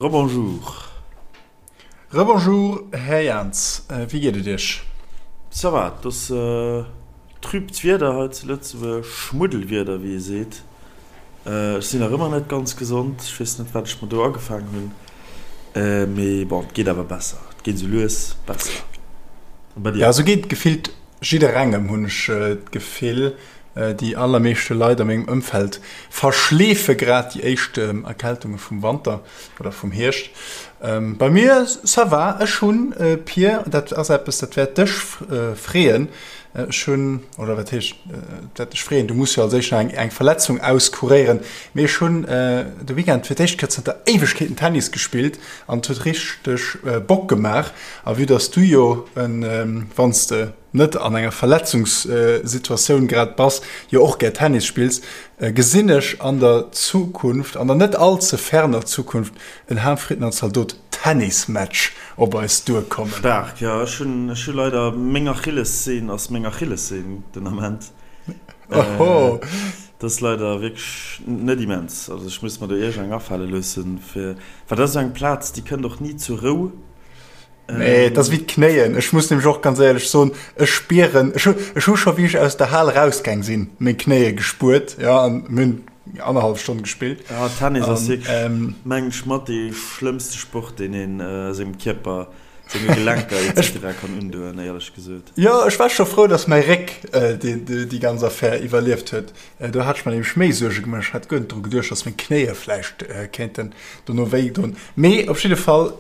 Rebonjour. Rebonjour Här Jans, wéi geet et Iech? Ça va, et ass trübt Wieder hei zu Lëtzebuerg, Schmuddelwieder wéi ee seet. Ech sinn nach ëmmer net ganz gesond, ech weess net wat ech mer do agefaang hunn, mee bon, et geet awer besser, et geet esou lues besser. A bei dir? Jo, esou geet et gefillt jidderengem, hunn ech d'Gefill. Déi allermeeschte Leit a mengem Ëmfeld verschleefe grad déi éischt Erkältunge vum Wanter oder vum Hierscht. Bei mir, ça va. Ech hunn, Pir, dat ass eppes, dat wäert dech freeën, ech hunn, oder wat heescht, et wäert dech freeën, du muss jo als éischt nach eng Verletzung auskuréieren, mee ech hunn de Weekend fir d'éischt Kéier zënter Éiwegkeeten Tennis gespillt an et huet richteg Bock gemaach. A vue dass du jo, wann s de net an enger Verletzungssituatioun grad bass, jo och gär Tennis spills, gesinn ech an der Zukunft, an der net all ze ferner Zukunft, en Ham-Fritten an Zaldot Tennismatch op eis duerkommen. Staark, jo. Ech hunn, ech hu leider, meng Achillessehn ass meng Achillessehn den Ament. Oho. Dat ass leider wierklech net immens. Also ech muss mer do iergend eng afale loossen, fir, well dat ass esou eng Plaz, déi kënnt och ni zur Rou. Nee, et ass wéi d'Knéien. Ech muss nämlech och ganz éierlech soen, ech spieren, ech hu, ech hu scho wéi ech aus der Hal erausgaang sinn, meng Knéie gespuert, jo, an mir hunn annerhallef Stonn gespillt. Ja, Tennis ass wierklech, mengen ech, mat dee schlëmmste Sport, deen een sengem Kierper, senge Gelenker etc. Kann undoen, éierlech gesot. Jo, ech war scho frou, dass mäi Réck déi ganz Affär iwwerlieft huet. Do hat ech mer nämlech méi Suerge gemaach. Ech hat guer net dru geduecht, dass meng Knéie vläicht kéinten dono wéi doen. Mee op jidde Fall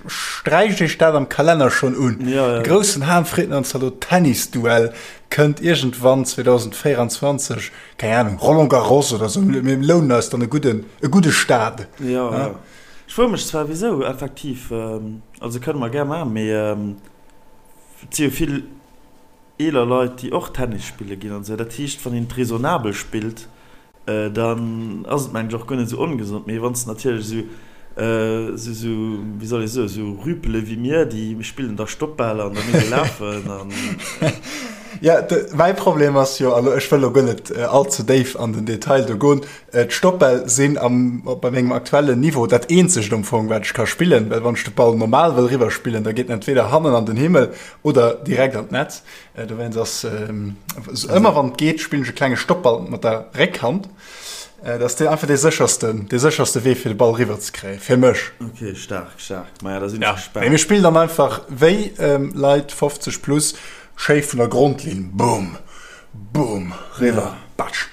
sträicht Iech dat am Kalenner schonn un. De groussen Ham-Fritten an Zalot Tennisduell kënnt iergendwann 2024, keng Anung, Roland Garros oder sou. Mir lounen eis dann e gudden, e gudde Stade. Jo, jo. Ech froe mech zwar wisou, effektiv. Also kënne mer gär maachen, mee et si jo vill. Eeler Leit, déi och Tennis spille ginn an esou. Dat heescht, wann een et raisonnabel spillt, dann ass et, mengen ech, och guer net esou ongesond. Mee wann s de natierlech esou, esou, esou, wéi soll ee soen, esou Rüpele wéi mir, déi spillen da Stoppbal an da muss ee lafen an. Jo, mäi Problem ass jo, elo ech wëll elo guer net all ze déif an den Detail do goen, d'Stoppbäll sinn am, bei mengem aktuellen Niveau dat eenzegt am Fong, wat ech ka spillen, well wann ech de Ball normal wëll eriwwerspillen, da geet en entweder hannen an den Himmel Oder direkt an d'Netz. Dowéinst ass ëmmer wann et geet, spillen ech e klenge Stoppball mat der Réckhand. Dat ass einfach dee séchersten, dee sécherste Wee fir de Ball riwwer ze kréien, fir mech. Ok, staark, staark. Maja, da sinn ech gespaant. Mee mir spillen dann einfach wéi Leit 50 plus, schéi vun der Grondlinn, boom, boom, riwwer, batsch.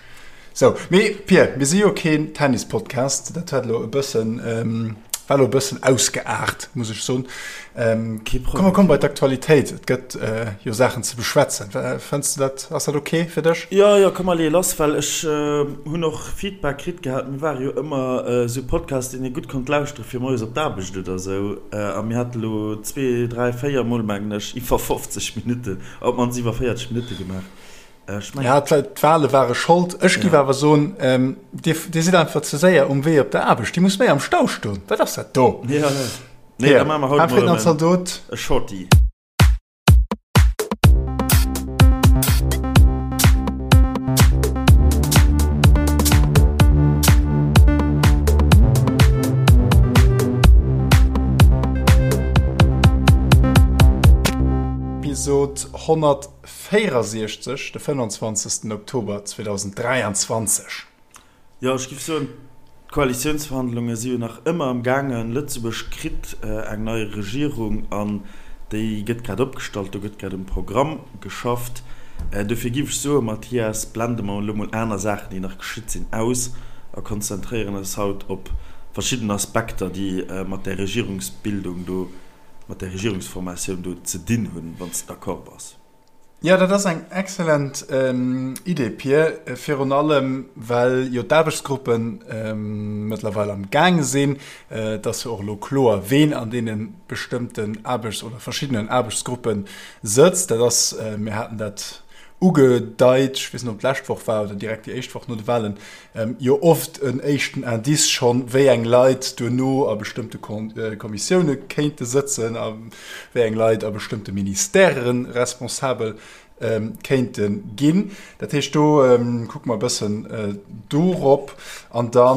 Sou, mee Pir, mir si jo keen Tennis-Podcast, dat huet elo e bëssen, war elo e bëssen ausgeaart, muss ech soen. Kee Problem. Komm, komm bei d'Aktualitéit, et gëtt jo Saachen ze beschwätzen. Fënns de dat, ass dat ok fir dech? Jo, jo, komm mer leeë lass, well ech hunn och Feedback kritt gehat. Mir ware jo ëmmer esou Podcast, deen ee gutt konnt lauschtere fir moies op d'Aarbecht oder esou. A mir hate lo zwee, dräi, véier Mol, mengen ech, iwwer 50 Minutten, op d'mannst iwwer 40 Minutte gemaach. Ja, d'Wale ware Schold. Ech giff awer soen, Dir, Dir sidd einfach ze séier um Wee op der Aarbecht. Dir musst méi am Stau stoen. Wat ass dat do? Ja, ja. Nee, da maache mer haut mol erëm e Shorty. Episod 100. 64, de 25. Oktober 2023. Jo, ech géif soen, d'Koalitiounsverhandlunge si jo nach ëmmer am gaangen. Lëtzebuerg kritt eng nei Regierung an déi gëtt grad opgestallt, do gëtt grad um Programm geschafft. Dofir géif ech soen, Mathias, blende mer elo mol aner Saachen, déi nach geschitt sinn, aus a konzentréieren eis haut op verschidden Aspekter, déi mat där Regierungsbildung do mat der Regierungsformatioun do ze dinn hunn, wann s de d'accord bass. Jo, dat ass eng excellent Idee, Pir, virun allem well jo d'Aarbechtsgruppe mëttlerweil am gaange sinn. Et ass jo och elo kloer, ween an deene bestëmmten Aarbechts oder verschiddenen Aarbechtsgruppe sëtzt. Dat ass, mir haten dat ugedeit, ech weess net, ob et d'lescht Woch war oder direkt déi éischt Woch no de Wahlen, jo oft en éischten Indice schonn, wéi eng Leit duerno a bestëmmte Kommissioune kéinte sëtzen a wéi eng Leit a bestëmmte Ministèrë responsabel. kéinte ginn. Dat heescht, do kucke mer e bëssen dorop. An da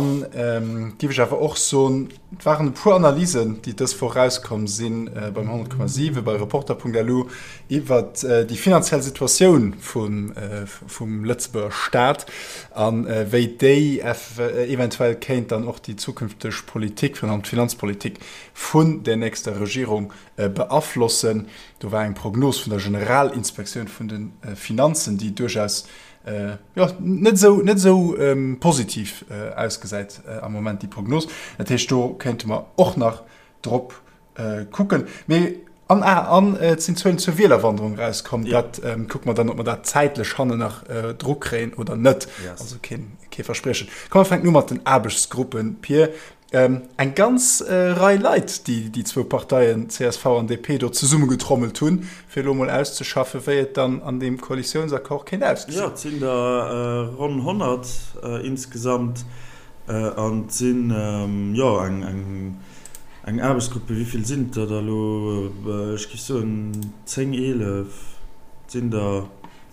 géif ech awer och soen, et waren e puer Analysen, déi dës Woch erauskomm si beim 100,7, bei Reporter.lu iwwert déi finanziell Situatioun vum Lëtzebuerger Staat a wéi déi eventuell kéint dann och déi zukünfteg Politik, virun allem d'Finanzpolitik vun der nächster Regierung beaflossen. Do war eng Prognos vun der Generalinspektioun vun de Finanzen, déi duerchaus jo net esou net esou positiv ausgesäit am Moment, déi Prognos. Dat heescht, do kéinte mer och nach drop kucken. Mee an ah, an et sinn Zuelen zur Wielerwanderung erauskomm. Dat kucke mer dann, ob mer dat zäitlech hannen nach dru kréien oder net. Also keen kee Verspriechen. Komm mer fänken u mat den Aarbechtsgruppen, Pir. Eng ganz Rei Leit, déi déi zwou Parteien csv an DP do zesummegetrommelt hunn, fir elo mol auszeschaffen, wéi et dann an deem Koalitiounsaccord kéint ausgesinn. Jo, et sinn der ronn 100 insgesamt an et sinn, jo, eng Aarbechtsgruppe, wéi vill sinn et der da elo? Ech géif soen 10, 11, et sinn der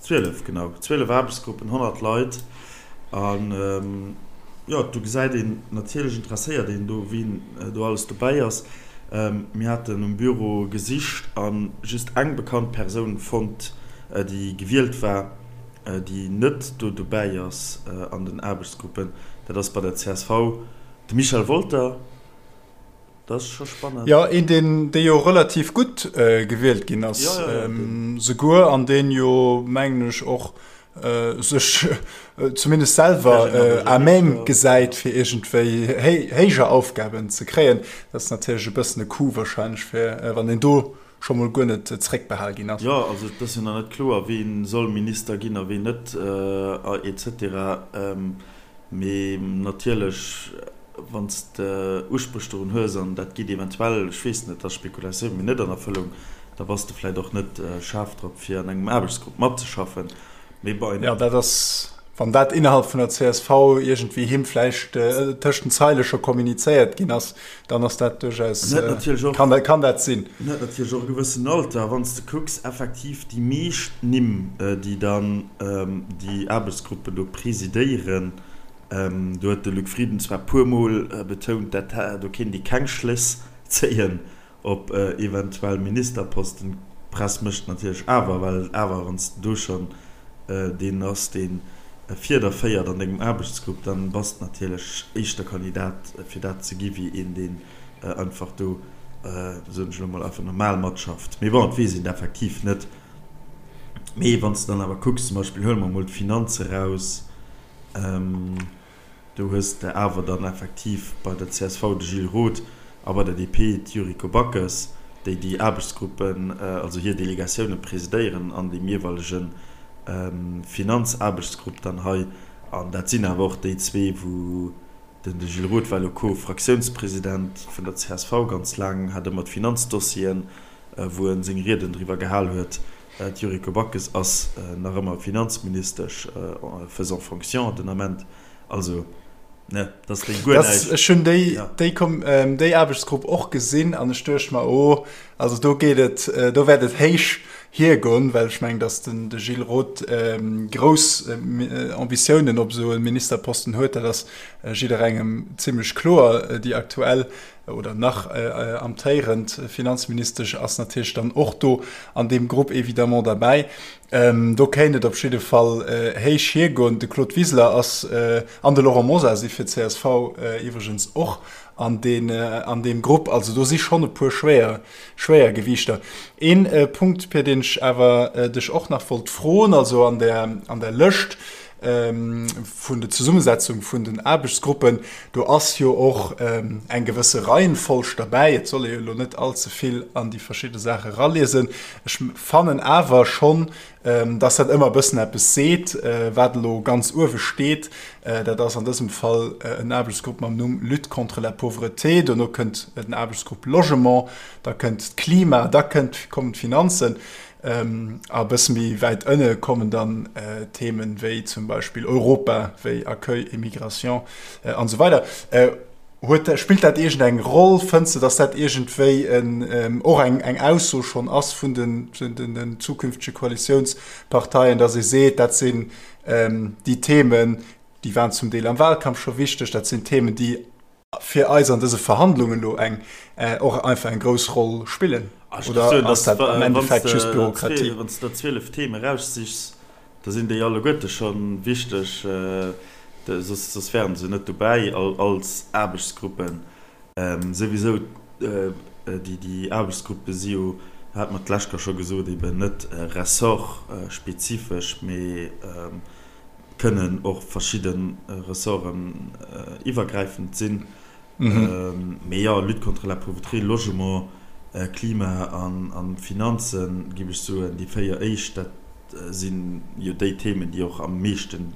12, genau, 12 Aarbechtsgruppen, 100 Leit. An jo, do gesäit een, natierlech interesséiert een do, wien do alles dobäi ass. Mir haten um Büro gesicht a just eng bekannt Persoun fonnt, déi gewielt war, déi net do dobäi ass an den Aarbechtsgruppen. Dat ass bei der csv de Michel Wolter. Dat ass scho spannend. Jo, een, deen, dee jo relativ gutt gewielt ginn ass, souguer, an deen jo, mengen ech, och sech zumindest selwer à même gesäit, fir iergendwéi héijer Aufgaben ze kréien. Dat ass natierlech e bëssen e Coup wahrscheinlech, fir wann een do scho mol guer net zréckbehal ginn ass. Jo, also et ass jo nach net kloer, ween soll Minister ginn a ween net, et cetera. Mee natierlech, wann s de Uspréch dorun hues an dat geet eventuell, ech weess net, dat ass Spekulatioun, mee net an Erfëllung, da bass de vläicht och net schaarf drop, fir an engem Aarbechtsgrupp matzeschaffen. Mee bei. Jo, dat ass, wann dat innerhalb vun der csv iergendwéi him vläicht tëscht den Zeile scho kommunizéiert ginn ass, dann ass dat duerchaus, kann dat, kann dat sinn. En huet natierlech och e gewëssen Alter. Wann s de kucks, effektiv déi meescht Nimm, déi dann déi Aarbechtsgruppen do presidéieren, do huet de Luc Frieden zwar puermol betount, dat do kéint ee keng Schléss zéien op eventuell Ministerposten. D'Press mécht natierlech awer, well awer wann s de do schonn deen ass, dee Fieder féiert an dengem Aarbechtsgrupp, dann bass de natierlech éischter Kandidat fir dat ze gi wéi een, deen einfach do, soen ech elo mol, einfach normal matschafft. Mee bon, et weess een et effektiv net. Mee wann s de dann awer kucks, zum Beispill huele mer mol d'Finanze raus, Do hues de awer dann effektiv bei der csv de Gilles Roth a bei der DP d'Yuriko Backes, déi déi Aarbechtsgruppen, also hir Delegatioune presidéieren an deem jeeweilege Finanzaarbechtsgrupp dann hei. An dat sinn awer och déi zwee, wou den de Gilles Roth war elo Co-Fraktiounspresident vun der csv ganz laang, hat ëmmer d'Finanzdossieren, wou e seng Rieden driwwer gehal huet. D'Yuriko Backes ass nach ëmmer Finanzministesch faisant fonction den Ament. Also, ne, dat ass déi guer näischt. Ech hunn déi, déi, déi Aarbechtsgrupp och gesinn an ech duecht mer, oh, also do geet et, do wäert et héich hiergoen, well ech mengen, datt den de Gilles Roth grouss Ambitiounen op esou e Ministerposten huet. Dat ass jidderengem zimlech kloer. Déi aktuell oder nach amtéierend Finanzministesch ass natierlech dann och do an deem Grupp évidemment derbäi. Do kéint et op jidde Fall héich hiergoen. De Claude Wiseler ass an de Laurent Mosar si fir csv iwwregens och an deen an deem Grupp. Also do si schonn e puer schwéier Schwéiergewiichter. Een Punkt, Pir, deen ech awer dech och nach wollt froen, also an der an der Lëscht, vun der Zesummesetzung vun den Aarbechtsgruppen, do ass jo och eng gewësse Reihenfolg derbäi. Et soll ee jo elo net allze vill an déi verschidde Saache eraliesen. Ech fannen awer schonn, dass dat ëmmer e bëssen eppes seet, wat elo ganz uewe steet. Dat ass an dësem Fall en Aarbechtsgrupp mam Numm Lutte contre la pauvreté. Dono kënnt den Aarbechtsgrupp Logement, da kënnt d'Klima, da kënnt, kommen d'Finanzen. A e bësse méi wäit ënne kommen dann Themen wéi zum Beispill Europa, wéi Accueil et Migration an esou weider. Huet, spillt dat iergend eng Roll? Fënns de, datt dat iergendwéi en, och eng, eng Ausso schonn ass vun den, den, den zukünftege Koalitiounsparteien, datt ee seet, dat sinn déi Themen, déi waren zum Deel am Wahlkampf scho wichteg, dat sinn Themen, déi fir eis an dëse Verhandlungen elo eng, och einfach eng grouss Roll spillen? Oder ass dat am Endeffekt just Bürokratie? Wann s de der 12 Themen eraussichs, Da sinn déi alleguerte scho wichteg, soss wären se net dobäi als Aarbechtsgruppen. Souwisou, déi Aarbechtsgruppe si jo, hat mer d'lescht Kéier scho gesot, eben net ressortspezifesch, mee kënnen och verschidde Ressorten iwwergräifend sinn. Mee jo, Lutte contre la pauvreté, Logement, Klima an Finanzen, géif ech soen, déi 4 éischt, dat si jo déi Themen, déi och am meeschten,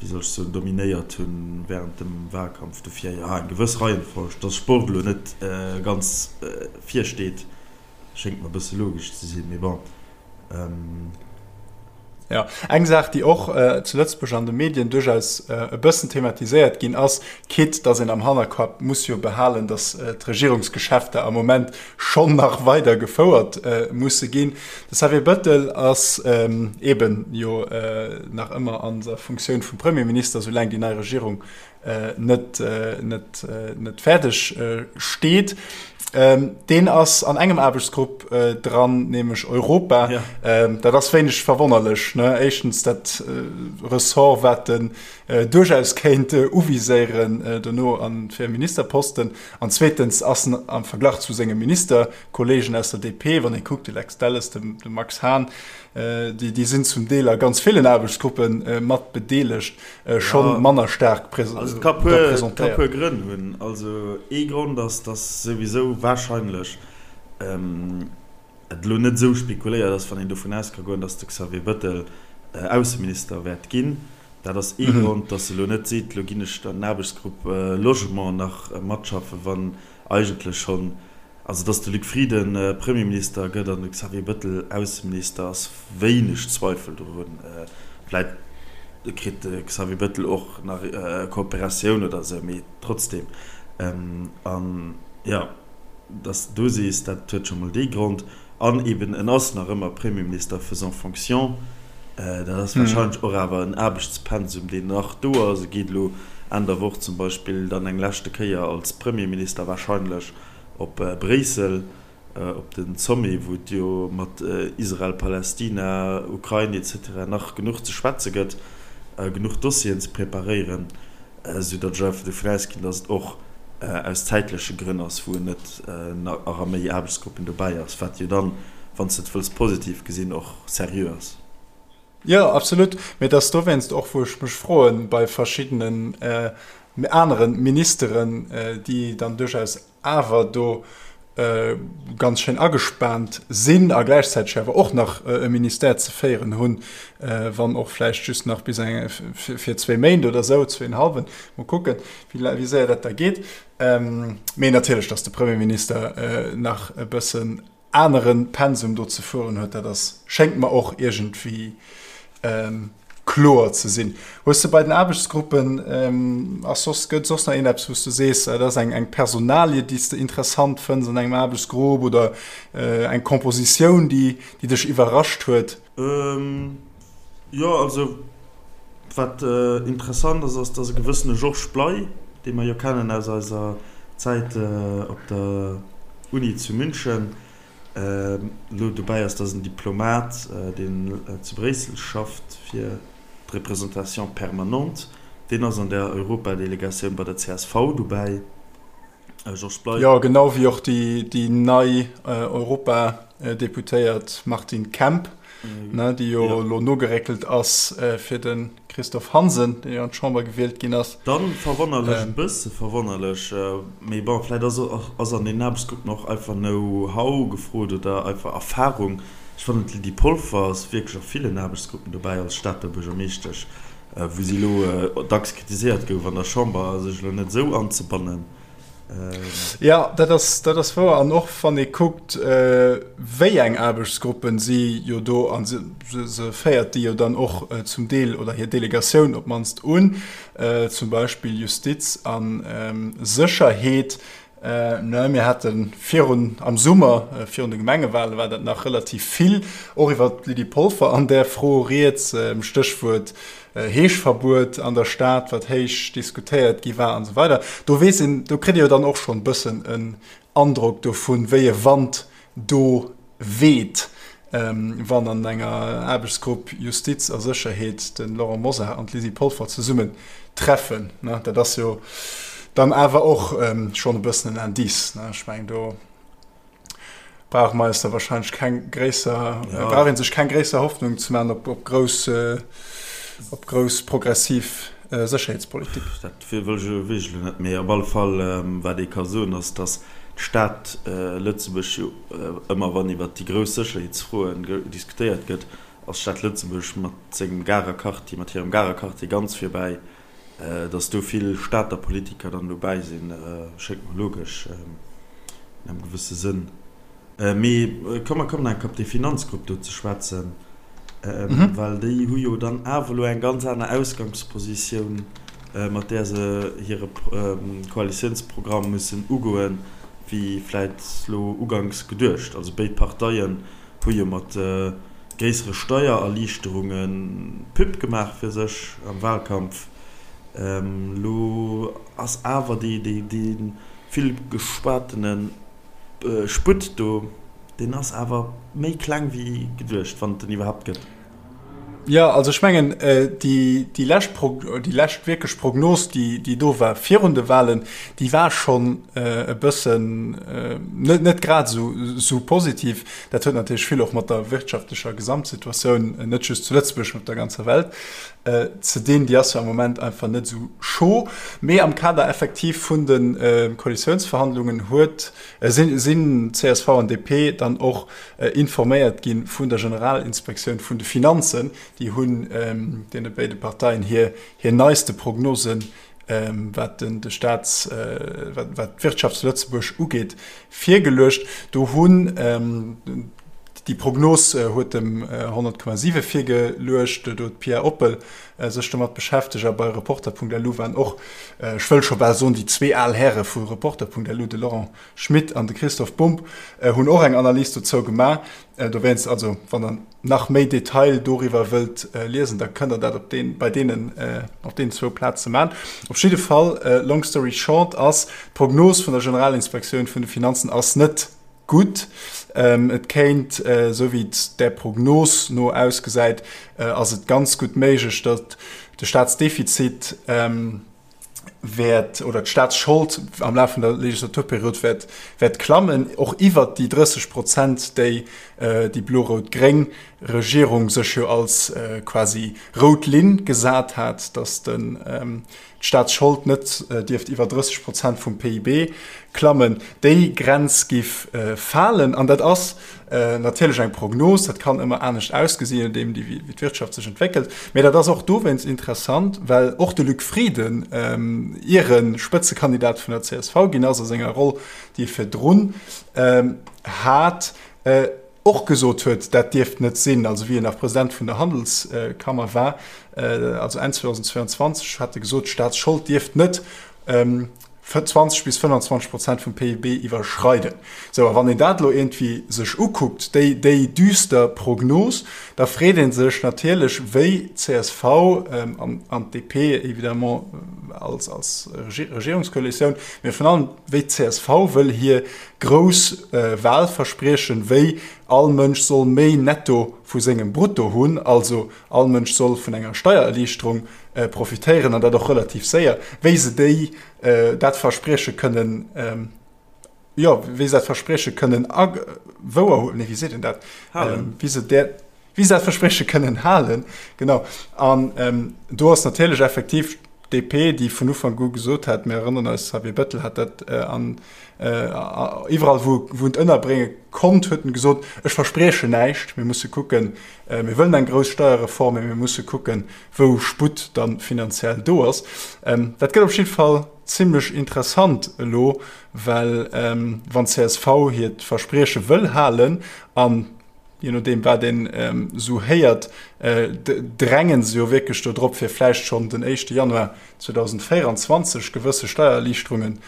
wéi soll ech soen, dominéiert hu während dem Wahlkampf. Dofir, jo, eng gewëss Reihenfolg, dass Sport elo net ganz vir steet, Schéngt mer e bësse logesch ze sinn, mee bon. Jo, eng Saach, déi och zu Lëtzebuerg an de Medien duerchaus e bëssen thematiséiert ginn ass, quitte datt een am Hannerkapp muss jo behalen, datt d'Regierungsgeschäfter am Moment schonn nach weider gefouert musse ginn. De Xavier Bettel ass eeben jo nach ëmmer an der Funktioun vum Premierminister, soulaang déi nei Regierung net, net, net fäerdeg steet. Deen ass an engem Aarbechtsgrupp dran, nämlech Europa. Ja. Dat ass wéineg verwonnerlech, ne? Éischtens dat Ressort, wat en duerchaus kéint uviséieren dono an fir e Ministerposten. An zweetens ass en am Verglach zu senge Ministerkolleegen aus der DP, wann ee kuckt, de Lex Delles, de Max Hahn, déi, déi sinn zum Deel a ganz villen Aarbechtsgruppe mat bedeelegt. Schonn manner staark presentéiert. Also et ka puer Grënn hunn. Also ee Grond ass, datt souwisou warscheinlech et elo net esou spekuléiert ass, wann een dovun aus ka goen, datt de Xavier Bettel Ausseminister wäert ginn. Dat ass ee Grond, datt e elo net seet, elo ginn ech an den Aarbechtsgrupp Logement nach matschaffen, wann eigentlech schonn, also datt de Luc Frieden Premierminister gëtt an de Xavier Bettel Ausseminister, ass wéineg Zweifel dorun. Vläit kritt de Xavier Bettel och nach Kooperatioun oder esou, mee trotzdem. An jo, datt s de do sees, dat huet scho mol dee Grond. An eben, en ass nach ëmmer Premierminister faisant fonction. Dat ass warscheinlech och awer en Aarbechtspensum, deen nach do ass. E geet elo Enn der Woch zum Beispill dann eng leschte Kéier als Premierminister warscheinlech op Bréissel op de Sommet, wou et jo mat Israel, Palästina, Ukrain etc. Nach genuch ze schwätze gëtt, genuch Dossieren ze preparéieren. Esou datt ech einfach dovun ausginn, datt et och aus zäitleche Grënn ass, wou en net nach a méi Aarbechtsgruppen dobäi ass, wat jo dann, wann s de et wëlls positiv gesinn, och seriö ass. Jo, absolut. Mee et ass dowéinst och, wou ech mech froen, bei verschiddenen anere Ministeren, déi dann duerchaus awer do ganz schéin agespaant sinn a gläichzäiteg awer och nach e Ministère ze féieren hunn, wann och vläicht just nach bis eng fir zwéi Méint oder esou, zwéinhallwen, mol kucken, wéi séier dat da geet. Mee natierlech, datt de Premierminister nach e bëssen anere Pensum do ze fueren huet, dat ass, schéngt mer och iergendwéi kloer ze sinn. Hues de bei den Aarbechtsgruppen, ass soss, gëtt soss nach iergendeppes, wou s de sees, dat ass eng, eng Personalie, déi s de interessant fënns an engem Aarbechtsgrupp oder eng Kompositioun, déi, déi dech iwwerrascht huet? Jo, also wat interessant ass, ass, dass e gewëssene Georges Bley, dee mer jo kennen aus eiser Zäit op der Uni zu München, elo dobäi ass, dat ass en Diplomat, deen zu Bréissel schafft fir d'Représentation permanente, deen ass an der Europadelegatioun bei der csv dobäi. Georges Bley. Jo, genau wéi och déi nei Europadeputéiert Martine Kemp, déi jo elo nogeréckelt ass fir de Christophe Hansen, deen jo an d'Chamber gewielt ginn ass. Dann verwonnerlech, e bësse verwonnerlech, mee bon, vläit ass ass an deenen Aarbechtsgruppen och einfach Know-how gefrot oder einfach Erfahrung. Ech fannen d'Lydie Polfer ass wierklech a villen Aarbechtsgruppen dobäi als Stater Buergermeeschtesch, wou si elo dacks kritiséiert gouf an der Chamber, sech elo net esou anzebannen. Jo, dat ass, dat ass wouer. An och wann ee kuckt, wéi eng Aarbechtsgruppen si jo do, a se, se féiert déi jo dann och zum Deel, oder hir Delegatioun op d'mannst un, zum Beispill Justiz a Sécherheet. Ne, mir hate virun, am Summer, virun de Gemengewale war dat nach relativ vill och iwwert d'Lydie Polfer an där Fro rieds, Stéchwuert Heeschverbuet an der Stad, wat héich diskutéiert gi war an esou weider. Do weess een, do kritt ee jo dann och schonn e bëssen en Androck dovun, wéi e Wand do weht, wann an enger Aarbechtsgrupp Justiz a Sécherheet de Laurent Mosar an d'Lydie Polfer zesummen treffen. Dat ass jo dann awer och schonn e bëssen en Indice. Ech mengen, do brauche mer eis da wahrscheinlech keng gréisser, ja. brauch een sech keng gréisser Hoffnung ze man op, op grouss, äh, op grouss progressiv äh, Sécherheetspolitik. Dat wëll ech elo wierklech elo net, mee op alle Fall ähm, wat ee ka soen ass, datt d'Stad äh, Lëtzebuerg jo äh, ëmmer wann iwwert déi grouss Sécherheetsfroen diskutéiert gëtt, ass d'Stad Lëtzebuerg mat sengem Garer Quartier, mat hirem Garer Quartier ganz virbäi. Datt do vill Stater Politiker dann dobäi sinn, schéngt mer logesch an engem gewësse Sënn. Mee komm, mer kommen enk op déi Finanzgrupp do ze schwätzen, well déi hu jo dann awer elo eng ganz aner Ausgangspositioun, mat där se hire Koalitiounsprogramm mussen ugoen, wéi vläit elo uganks geduecht. Also béid Parteien hu jo mat gréissere Steiererliichterunge Pub gemaach fir sech am Wahlkampf. Elo ass awer dee vill geschwatene Sputt do, deen ass awer méi kleng wéi geduecht, wann et en iwwerhaapt gëtt. Jo, also ech mengen, déi lescht Pro, déi lescht wierklech Prognos, déi, déi do war virun de Wahlen, déi war schonn e bëssen net, net grad esou, esou positiv. Dat huet natierlech vill och mat der wirtschaftlecher Gesamtsituatioun, net just zu Lëtzebuerg, mee op der ganzer Welt, ze dinn. Déi ass jo am Moment einfach net esou chaud. Mee am Kader effektiv vun de Koalitiounsverhandlungen huet, sinn, sinn csv an DP dann och informéiert gi vun der Generalinspektioun vun de Finanzen. Déi hunn deene béide Parteien hir hir neiste Prognosen, wat den de Staats wat wat d'Wirtschaft zu Lëtzebuerg ugeet, virgeluecht. Do hunn déi Prognos huet dem 100,7 virgeluecht, do huet d'Pia Oppel sech domat beschäftegt a bei Reporter.lu waren och, ech wëll scho bal soen, déi zwee al Häre vu Reporter.lu, de Laurent Schmit an de Christoph Bumb hunn och eng Analys dozou gemaach. Dowéinst, also wann der nach méi Detail doriwwer wëllt liesen, da kënnt der dat op deen, bei deenen, op deenen zwou Plaze man. Op jidde Fall, long story short, ass d'Prognos vun der Generalinspektioun vun de Finanzen ass net gutt. Et kéint, esou wéi et där Prognos no ausgesäit, ass et ganz gutt méiglech, datt de Staatsdefizit, wäert, oder d'Staatsschold am Laf vun der Legislaturperiod wäert, wäert klammen, och iwwert déi 30 Prozent, déi déi blo-rout-gréng Regierung sech jo als quasi rout Linn gesat hat, datt den, d'Staatsschold net dierft iwwer 30 Prozent vum PIB klammen. Déi Grenz giff falen. An dat ass natierlech eng Prognos, dat kann ëmmer anescht ausgesinn, je nodeem wéi d'Wirtschaft sech entwéckelt. Mee dat ass och dowéinst interessant, well och de Luc Frieden, ier e Spëtzekandidat vun der csv ginn ass, a senger Roll, déi e virdrun hat, och gesot huet, dat dierft net sinn. Also wéi en nach President vun der Handelskammer war, also Enn 2022, hat e gesot, d'Staatsschold dierft net 20 bis 25 Prozent vum PIB iwwerschreiden. Sou, a wann een dat elo iergendwéi sech ukuckt, déi, déi düster Prognos, da freet ee sech natierlech, wéi csv an, an d'DP évidemment als, als Regierungskoalitioun, mee virun allem wéi d'CSV wëll hir grouss Wahlverspriechen, wéi all Mënsch soll méi netto vu sengem Brutto hunn, also all Mënsch soll vun enger Steiererliichterung profitéieren an dat och relativ séier, wéi se déi dat Versprieche kënnen, jo, wéi se dat Versprieche kënnen a wouer huelen, nee, wéi seet een dat, halen, wéi se där, wéi se dat Versprieche kënnen halen, genau. An do ass natierlech effektiv. DP, déi vun Ufank u gesot hat, mir erënneren eis, Xavier Bettel hat dat an iwwerall wou wou en et ënnerbrénge konnt, huet en gesot, ech verspriechen näischt, mir musse kucken, mir wëllen eng grouss Steierreform, mee mir musse kucken, wou Sputt da finanziell do ass. Dat gëtt op jidde Fall zimlech interessant elo, well wann csv hiert Versprieche wëll halen an je nodeem wat een esou héiert, dränge se jo wierklech do drop, fir vläicht schonn den éischte Januar 2024 gewësse Steiererliichterungen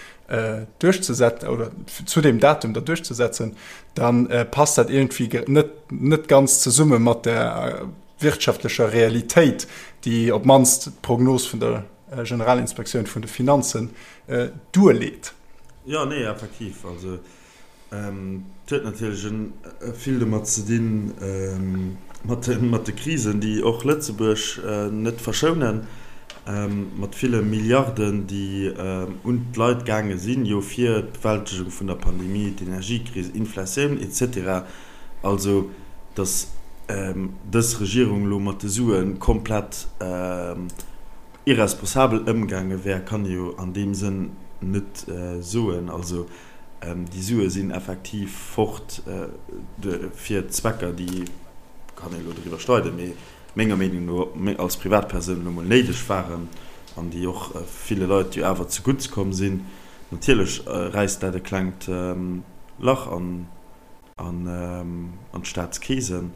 duerchzesetzen oder zu deem Datum da duerchzesetzen, da passt dat iergendwéi net, net ganz zesumme mat der wirtschaftlecher Realitéit, déi op d'mannst d'Prognos vun der Generalinspektioun vun de Finanzen duerleet. Jo, nee, effektiv. Also Et huet natierlech vill domat ze dinn, mat de Krisen, déi och Lëtzebuerg net verschounen, mat ville Milliarden, déi un d'Leit gaange sinn, jo fir d'Bewältegung vun der Pandemie, d'Energiekris, Inflatioun et cetera. Also, datt dës Regierung elo mat de Sue komplett irresponsabel ëmgaange wär, kann ee jo an deem Sënn net soen. Also, Déi Sue sinn effektiv fort fir Zwecker, déi, kann ee elo driwwer streiden, mee menger Meenung no als Privatpersoun elo mol néideg waren an déi och ville Leit jo awer zegutts komm sinn. Natierlech räisst dat e klengt Lach an an d'Staatskeesen.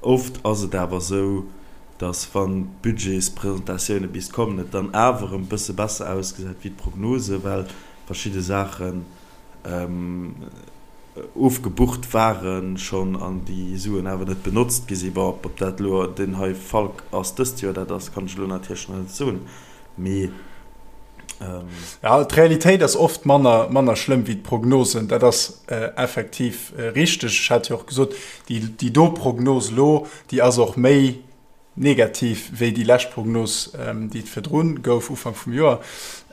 Oft ass et awer esou, datt wann d'Budgetspresentatioune bis kommen, et dann awer erëm e bësse besser ausgesäit wéi d'Prognose, well verschidde Saachen ofgebucht ware schonn an déi Suen awer net benotzt gi sinn. Bon, ob dat elo deen hei Fall ass dëst Joer, dat ass, kann ech elo natierlech nach net soen, mee. Ja, d'Realitéit ass oft manner, manner schlëmm wéi d'Prognosen. Dat ass effektiv richteg. Ech hat jo och gesot, déi, déi do Prognos elo, déi ass och méi negativ wéi déi lescht Prognos, déi et virdrun gouf, Ufank vum Joer.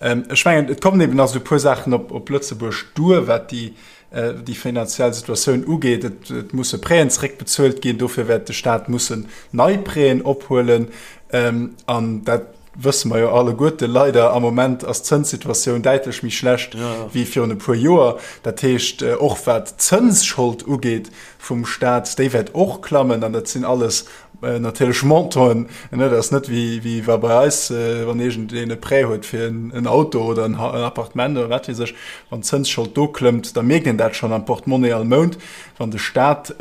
Ech mengen, et kommen eben nach esou e puer Saachen op, op Lëtzebuerg duer, wat déi, déi finanziell Situatioun ugeet. Et, et musse Prêten zeréckbezuelt ginn, dofir wäert de Staat mussen nei Prêten ophuelen. An dat wësse mer jo alleguerte leider, am Moment ass d'Zënssituatioun däitlech méi schlecht wéi virun e puer Joer. Dat heescht, och wat d'Zënsschold ugeet vum Staat, déi wäert och klammen. An dat sinn alles natierlech Montanten. Dat ass net wéi wa bei eis, wann iergendeen e Prêt huet fir en Auto oder en Appartement oder wat weess ech, wann d'Zënsschold do klëmmt, da mierkt een dat schonn am Portemonnaie all Mount. Wann de Staat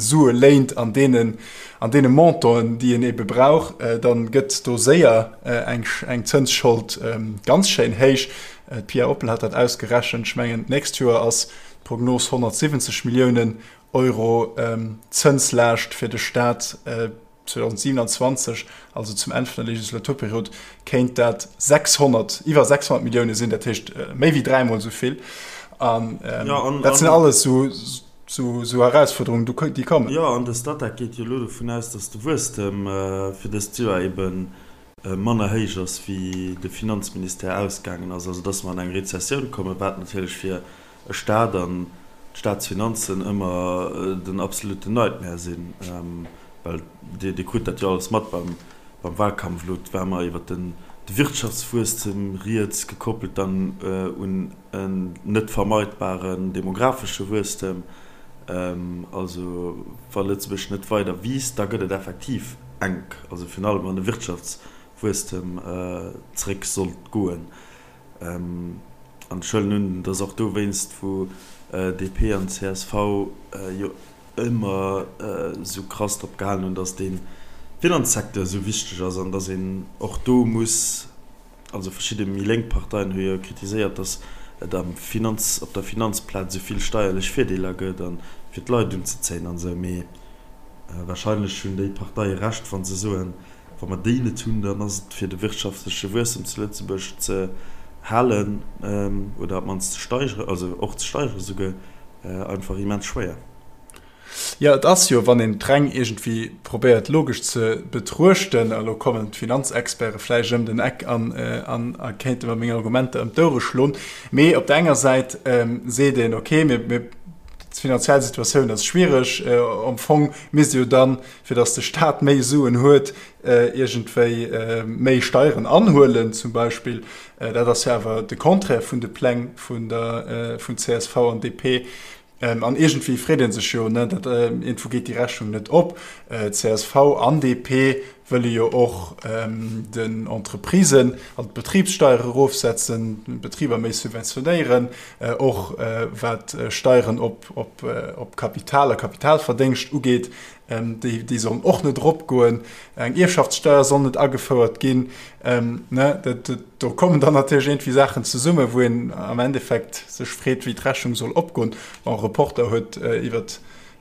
Sue léint an deenen An deene Montanten, déi een ebe brauch, da gëtt do séier eng Zënsschold ganz schéin héich. D'Pia Oppel hat dat ausgerechent. Ech mengen, d'nächst Joer ass d'Prognos 170 Milliounen Euro Zënslaascht fir de Staat. 2027, also zum Enn vun der Legislaturperiod, kéint dat 600, iwwer 600 Millioune sinn, dat heescht méi wéi dräimol esou vill. An dat sinn alles esou. Sou Erausfuerderungen, déi kommen. Jo, an de Statec geet jo elo dovun aus, datt de Wuesstem fir dëst Joer ebe manner héich ass, wéi de Finanzministère ausgaangen ass. Also datt mer an eng Rezessioun kommen, wat natierlech fir e Staat an d'Staatsfinanzen ëmmer den absoluten Nightmare sinn. Well Dir krut dat jo alles mat beim Wahlkampf elo, et war ëmmer iwwer de Wirtschaftswuesstem rieds, gekoppelt dann un en net vermeidbaren demographesche Wuesstem. Also wa Lëtzebuerg net weider wiisst, da gëtt et effektiv enk, also virun allem wann de Wirtschaftswuesstem zréck sollt goen. An ech huelen un, et ass och dowéinst, wou DP an csv jo ëmmer esou krass drop gehalen hunn, datt de Finanzsecteur esou wichteg ass an datt een och do muss, also verschidde méi lénk Parteien hu jo kritiséiert, datt et am Finanz, op der Finanzplaz esou vill steierlech Virdeeler gëtt a fir d'Leit unzezéien an esou. Mee warscheinlech hunn déi Parteie Recht, wa se soen, wa mer déi net hunn, dann ass et fir de wirtschaftleche Wuesstem zu Lëtzebuerg ze halen oder op d'mannst ze steigeren, also och ze steigeren esouguer, einfach immens schwéier. Jo, et ass jo, wann een d'Reng iergendwéi probéiert logesch ze betruechten, a lo kommen d'Finanzexperte vläicht ëm den Eck an a kéinte mer meng Argumenter ëm d'Ouere schloen, mee op der enger Säit seet een, okay, mir, mir. D'finanziell Situatioun ass schwiereg. Am Fong misst ee jo dann, fir datt de Staat méi Suen huet, iergendwéi méi Steieren anhuelen zum Beispill. Dat ass jo awer de Contraire vun de Pläng vun der vun csv an DP. An iergendwéi freet ee sech jo, ne, dat iergendwou geet déi Rechnung net op. Csv an DP wëlle jo och den Entreprisen, also d'Betribssteier erofsetzen, d'Betriber méi subventionéieren, och wat Steieren op Kapital a Kapitalverdéngscht ugeet, déi sollen och net eropgoen. Eng Ierfschaftssteier soll net agefouert ginn. Do kommen dann natierlech iergendwéi Saachen zesummen, wou een am Endeffekt sech freet, wéi d'Rechnung soll opgoen. Bon, e Reporter huet iwwer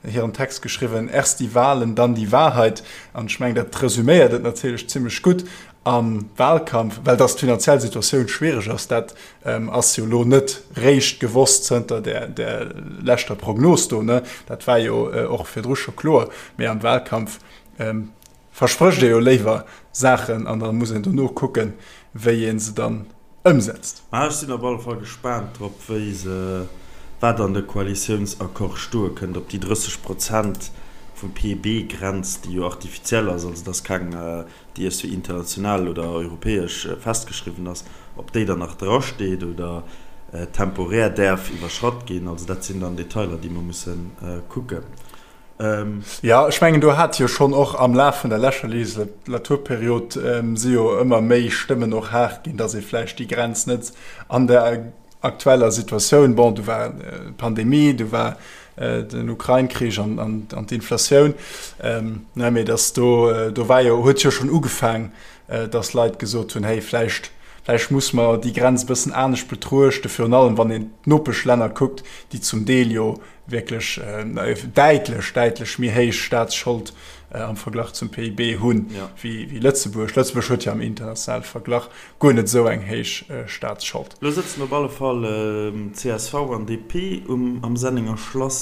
hiren Text geschriwwen, Erst die Wahlen, dann die Wahrheit. An ech mengen, dat resüméiert et natierlech zimmlech gutt am Wahlkampf. Well dass d'finanziell Situatioun schwiereg ass, dat ass jo elo net réischt gewosst zënter där leschter Prognos do, ne? Dat war jo och virdru scho kloer. Mee am Wahlkampf versprécht ee jo léiwer Saachen an da muss een dono kucken, wéi ee se dann ëmsetzt. Mä ech sinn op alle Fall gespaant drop, wéi se, wat an de Koalitiounsaccord stoe kënnt, ob déi 30 Prozent vum PIB-Grenz, déi jo artificiell ass, also et ass keng, déi iergendwéi international oder europäesch festgeschriwwen ass, ob déi dann nach drasteet oder temporär däerf iwwerschratt ginn. Also dat sinn dann Detailer, déi mer musse kucken. Jo, ech mengen, do hat jo schonn och am Laf vun der leschter Legislaturperiod si jo ëmmer méi Stëmmen och haart ginn, datt ee vläicht déi Grenz net an der aktueller Situatioun, bon, do war d'Pandemie, do war den Ukrain-Krich an d'Inflatioun, ne, mee datt do, do war jo, huet jo schonn ugefaang, datt Leit gesot hunn, hey, vläicht, vläicht muss mer déi Grenz e bëssen anescht betruechten, virun allem wann een d'Nopeschlänner kuckt, déi zum Deel jo wierklech däitlech, däitlech méi héich Staatsschold am Verglach zum PIB hunn wéi Lëtzebuerg. Lëtzebuerg huet jo am internationale Verglach guer net esou eng héich Staatsschold. Lo sëtzen op alle Fall csv an DP am Sennenger Schlass.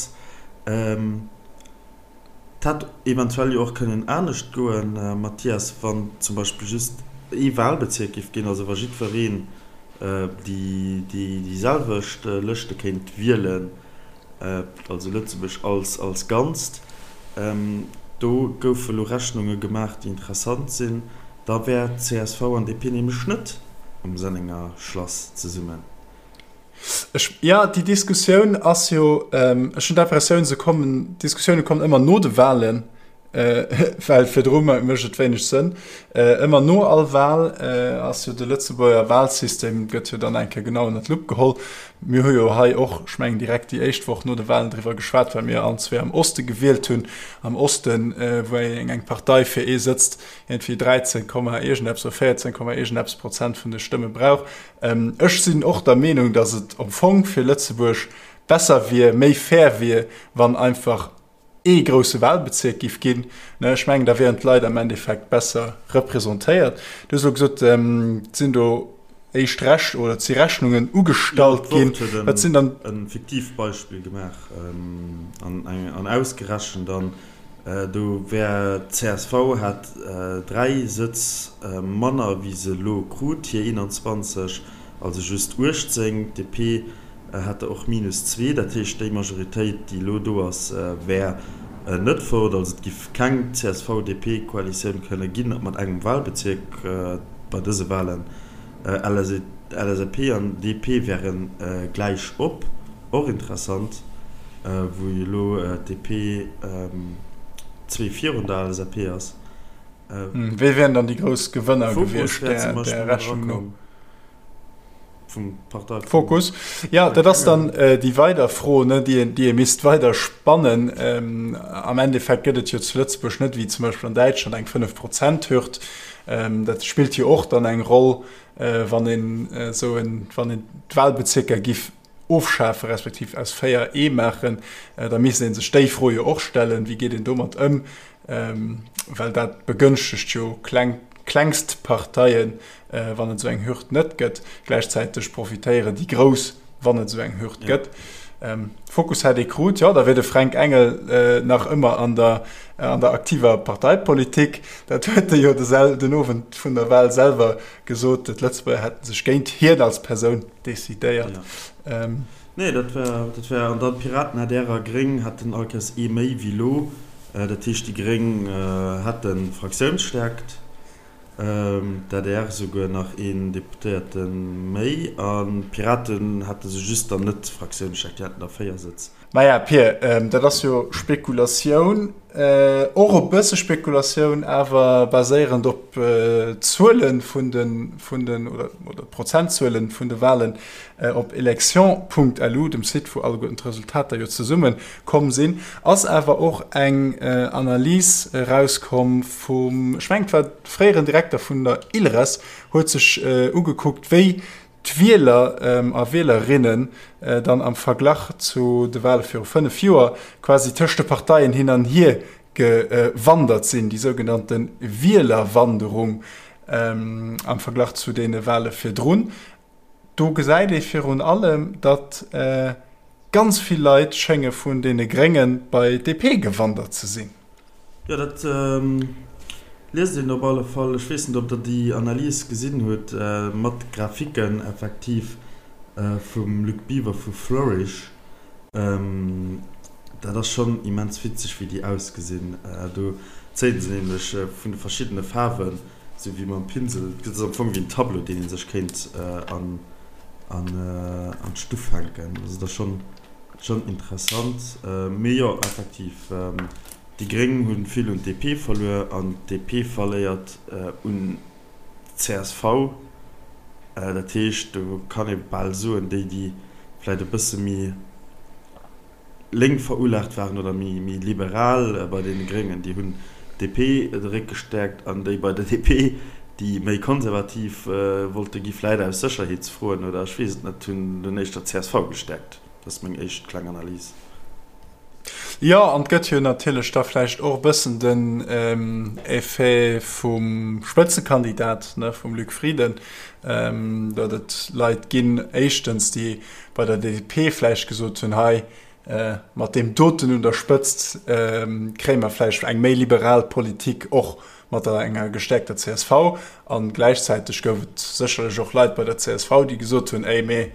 Et hätt eventuell jo och kënnen anescht goen, Mathias, wann zum Beispill just ee Wahlbezierk géif ginn, also wa jiddwereen déi selwecht Lëschte kéint wielen, also Lëtzebuerg als Ganzt. Do goufe lo Rechnunge gemaach, déi interessant sinn. Da wär csv an DP nämlech net um Sennenger Schlass zesummen. Ech, jo, déi Diskussioun ass jo, ech hunn d'Impressioun, se kommen, d'Diskussioune kommen ëmmer no de Wahlen, well virdru mécht et wéineg Sënn. Ëmmer no all Wahl ass jo de Lëtzebuerger Wahlsystem, gëtt jo dann eng Kéier genau ënner d'Lupp geholl. Mir hu jo hei och, ech mengen direkt déi éischt Woch no de Wahlen driwwer geschwat, well mir allen zwee am Oste gewielt hunn. Am Osten, wou eng eng Partei fir ee Sëtz iergendwéi 13 Komma iergendeppes oder 14 Komma iergendeppes Prozent vun de Stëmme brauch. Ech sinn och der Meenung, datt et am Fong fir Lëtzebuerg besser wier, méi fair wier, wann einfach ee grousse Wahlbezierk giff ginn. Ech mengen, da wieren d'Leit am Endeffekt besser representéiert. Du hues elo gesot, et sinn do éischt Rech oder et si Rechnungen ugestallt ginn. Jo, d'Wort huet Wat sinn dann. e fiktiivt Beispill gemaach an ausgerechent an do wär csv hätt 3 Sëtz manner wéi se elo krut, hir 21, also just 18, d'DP Hätt der och minus zwee, dat heescht déi Majoritéit, déi elo do ass, wär net fort. Also et giff keng CSV-DP-Koalitioun kënne ginn mat engem Wahlbezierk bei dëse Wahlen. LSAP an DP wäre gläich op, och interessant, wou jo elo d'DP zwee virun der LSAP ass. Wie wären dann déi grouss Gewënner gewiescht där Rechnung no? Vum Partei. Fokus. Ja, dat ass dann déi weider Fro, ne, déi een, déi ee misst weider spannen. Am Endeffekt gëtt et jo zu Lëtzebuerg net, wéi zum Beispill an Däitschland, eng Fënnef-Prozent-Hürd. Dat spillt jo och dann eng Roll, wann een esou en, wann een d'Wahlbezierker giff ofschafe respektiv aus 4 ee maachen. Da misst ee sech déi Fro jo och stellen, wéi geet een domat ëm? Well dat begënschtegt jo kleng, klengst Parteien, wann et esou eng Hürd net gëtt. Gläichzäiteg profitéieren déi Grouss, wann et esou eng Hürd gëtt. Fokus hätt ee krut, jo, da wier de Fränk Engel nach ëmmer an der an der aktiver Parteipolitik. Dat huet e jo den Owend vun der Wahl selwer gesot, d'Lëtzebuerger hätte sech géint hien als Persoun decidéiert. Nee, dat war, dat war, an dann d'Piraten, adr a Gréng hätten all Kéiers ee méi wéi elo. Dat heescht, déi Gréng hätte Fraktiounsstärkt. D'adr souguer nach een Deputéierte méi an d'Piraten hätte se just dann net Fraktiounsstäerkt, déi hätten da 4 Sëtz. Maja, Pir, dat ass jo Spekulatioun, och e bësse Spekulatioun, awer baséierend op d'Zuele vun de, vun den, oder d'Prozentzuele vun de Wahlen op election.lu, dem Site wou alleguerten d'Resultater jo zesumme komm sinn, ass awer och eng Analys erauskomm vum, ech mengen et war de fréieren Direkter vun der ILRES, huet sech ugekuckt, wéi d'Wieler a Wielerinnen dann am Verglach zu de Wahle viru 5 Joer quasi tëscht de Parteien hin an hier gewandert sinn, déi sougenannte Wielerwanderung am Verglach zu deene Wahle virdrun. Do gesäit ee virun allem, datt ganz vill Leit schénge vun deene Grénge bei d'DP gewandert ze sinn. Jo, dat liest een op alle Fall. Ech weess net, ob Der déi Analys gesinn hutt, mat Graphiken effektiv vum Luc Biver vu Flourish. Dat ass schonn immens witzeg, wéi déi ausgesinn. Do zéie se nämlech vun de verschiddene Faarwen Sou wéi mam Pinsel, et ass am Fong wéi en Tableau, deen ee sech kéint an d'Stuff hänken. Also dat ass schonn interessant. Mee jo, effektiv, déi Gréng hu vill un d'DP verluer an d'DP verléiert un d'CSV. Dat heescht, do kann ee bal soen, déi, déi vläicht e bësse méi lénk verulaagt waren oder méi liberal bei deene Gréngen, déi hunn d'DP de Réck gestäerkt an déi bei der DP, déi méi konservativ wollte gi vläit aus Sécherheetsfroen oder ech weess et net, hunn dunn éischter csv gestäerkt. Dat ass meng éischt kleng Analys. Jo, an et gëtt jo natierlech da vläicht och e bëssen den Effet vum Spëtzekandidat, ne, vum Luc Frieden, datt et Leit ginn, éischtens, déi bei der DP vläicht gesot hunn, hei mat deem doten un der Spëtzt kréie mer vläicht eng méi liberal Politik och mat der enger gestäerkter csv. A gläichzäiteg gouf et sécherlech och Leit bei der csv, déi gesot hunn, éi mee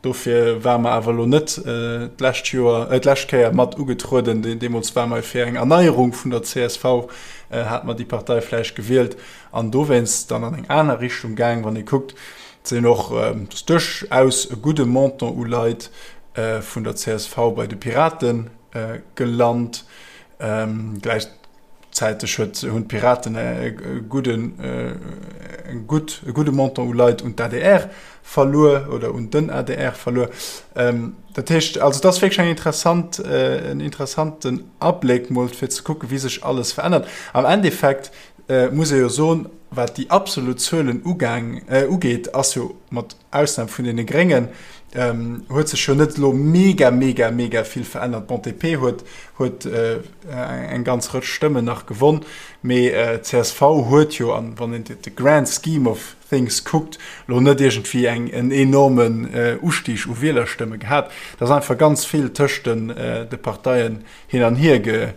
dofir ware mer awer elo net d'lescht Joer, d'lescht Kéier mat ugetrueden, deemools ware mer fir eng Erneierung vun der csv, hate mer déi Partei vläicht gewielt an dowéinst dann an eng aner Richtung gaang. Wann ee kuckt, sinn och dass duerchaus e gudde Montant u Leit vun der csv bei de Pirate gelant. Gläichzäiteg huet hunn d'Piraten e gudden e gutt e gudde Montant u Leit un d'ADR verluer oder un den adr verluer. Dat heescht also et ass wierklech eng interessant en interessanten Abléck mol fir ze kucke wéi sech alles verännert. Am Endeffekt muss ee jo soen, wat déi absolut Zuelen ugaang, ugeet, ass jo mat Ausnam vun deene Gréngen, huet sech jo net elo mega, mega, mega vill verännert. Bon, d'DP huet, huet eng ganz Rëtsch Stëmmen nach gewonn, mee csv huet jo, an wann een de grand scheme of things kuckt, elo net iergendwéi eng, en enormen Ustig u Wielerstëmme gehat. Et ass einfach ganz vill tëscht den, de Parteien hin an hier ge,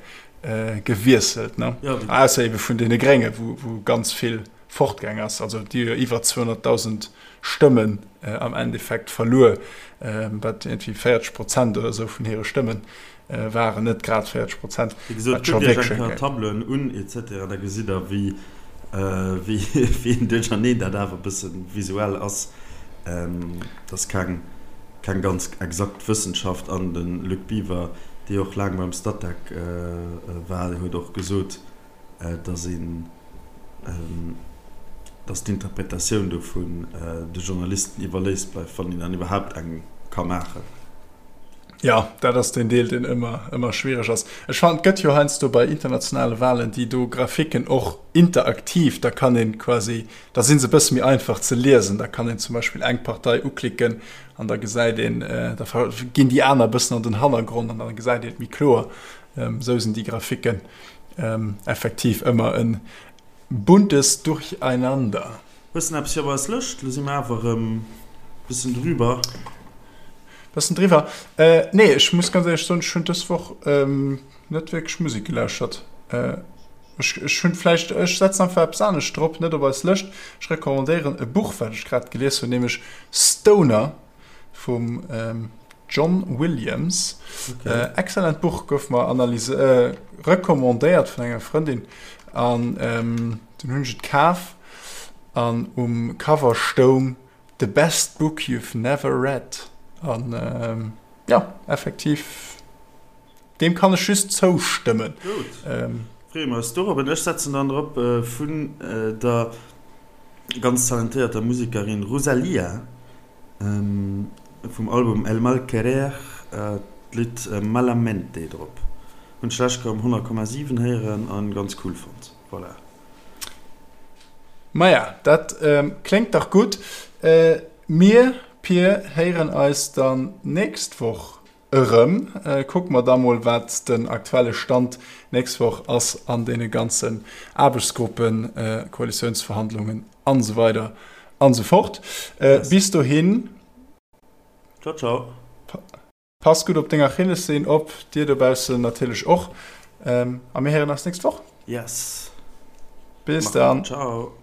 gewiesselt, ne? Ja, Ausser ebe vun deene Grénge, wou, wou ganz vill fortgaang ass. Also déi hu jo iwwer 200.000 Stëmmen äh, am Endeffekt verluer, äh, wat irgendwie 40 Prozent oder esou vun hire Stëmmen äh, waren, net grad 40 Prozent. Wéi gesot, kuckt Iech eng Kéier d'Tableauen un etc. Da gesitt Der, wéi, äh, wéi, wéi en Duercherneen dat awer e bësse visuell ass. Ähm, dat ass keng. Keng ganz exakt Wëssenschaft an de Luc Biver, dee och laang beim Statec war, huet och gesot, datt een, datt d'Interpretatioun dovun de Journalisten iwwerléisst bleift, wann een dann iwwerhaapt eng ka maachen. Jo, dat ass deen Deel, deen ëmmer, ëmmer schwiereg ass. Ech fannen, et gëtt jo heiansdo bei internationale Wahlen déi do Graphiken och interaktiv, da kann een quasi, da si se e bësse méi einfach ze liesen. Da kann een zum Beispill eng Partei uklicken an da gesäit een, da ginn déi aner e bëssen an den Hannergrond an da gesäit een et méi kloer. Esou sinn déi Graphiken effektiv ëmmer e buntes Durcheinander. Hues de eppes fir op eis Lëscht? Lo si mer awer erëm bëssen drüber. Bëssen driwwer. Nee, ech muss ganz éierlech soen, ech hunn dës Woch net wierklech Musek gelauschtert. Ech, ech hunn vläicht, ech setzen einfach eppes anescht drop, net op eis Lëscht. Ech recommandéieren e Buch, wat ech grad gelies hunn, nämlech Stoner vum John Williams. Okay. Excellent Buch, gouf mer analyse, recommandéiert vun enger Frëndin an dunn hunn ech et kaf an um Cover stoung The best book you've never read. An jo, effektiv, deem kann ech just zoustëmmen. Gutt, freeë mer eis dorop. An ech setzen dann drop vun der ganz talentéierter Musekerin Rosalía vum Album El Mal Querer d'Lidd Malamente drop. Hunn ech d'lescht Kéier um 100,7 héieren an ganz cool fonnt. Voilà. Maja, dat kléngt dach gutt. Mir, Pir, héieren eis dann nächst Woch erëm. Kucke mer da mol, wat den aktuelle Stand nächst Woch ass an deene ganzen Aarbechtsgruppen, Koalitiounsverhandlungen an esou weider an esou fort. Bis dohin. Ciao, ciao. Pass gutt op deng Achillessehn op, dir dobaussen natierlech och, a mir héieren eis nächst Woch. Yes. Bis dann. Ciao.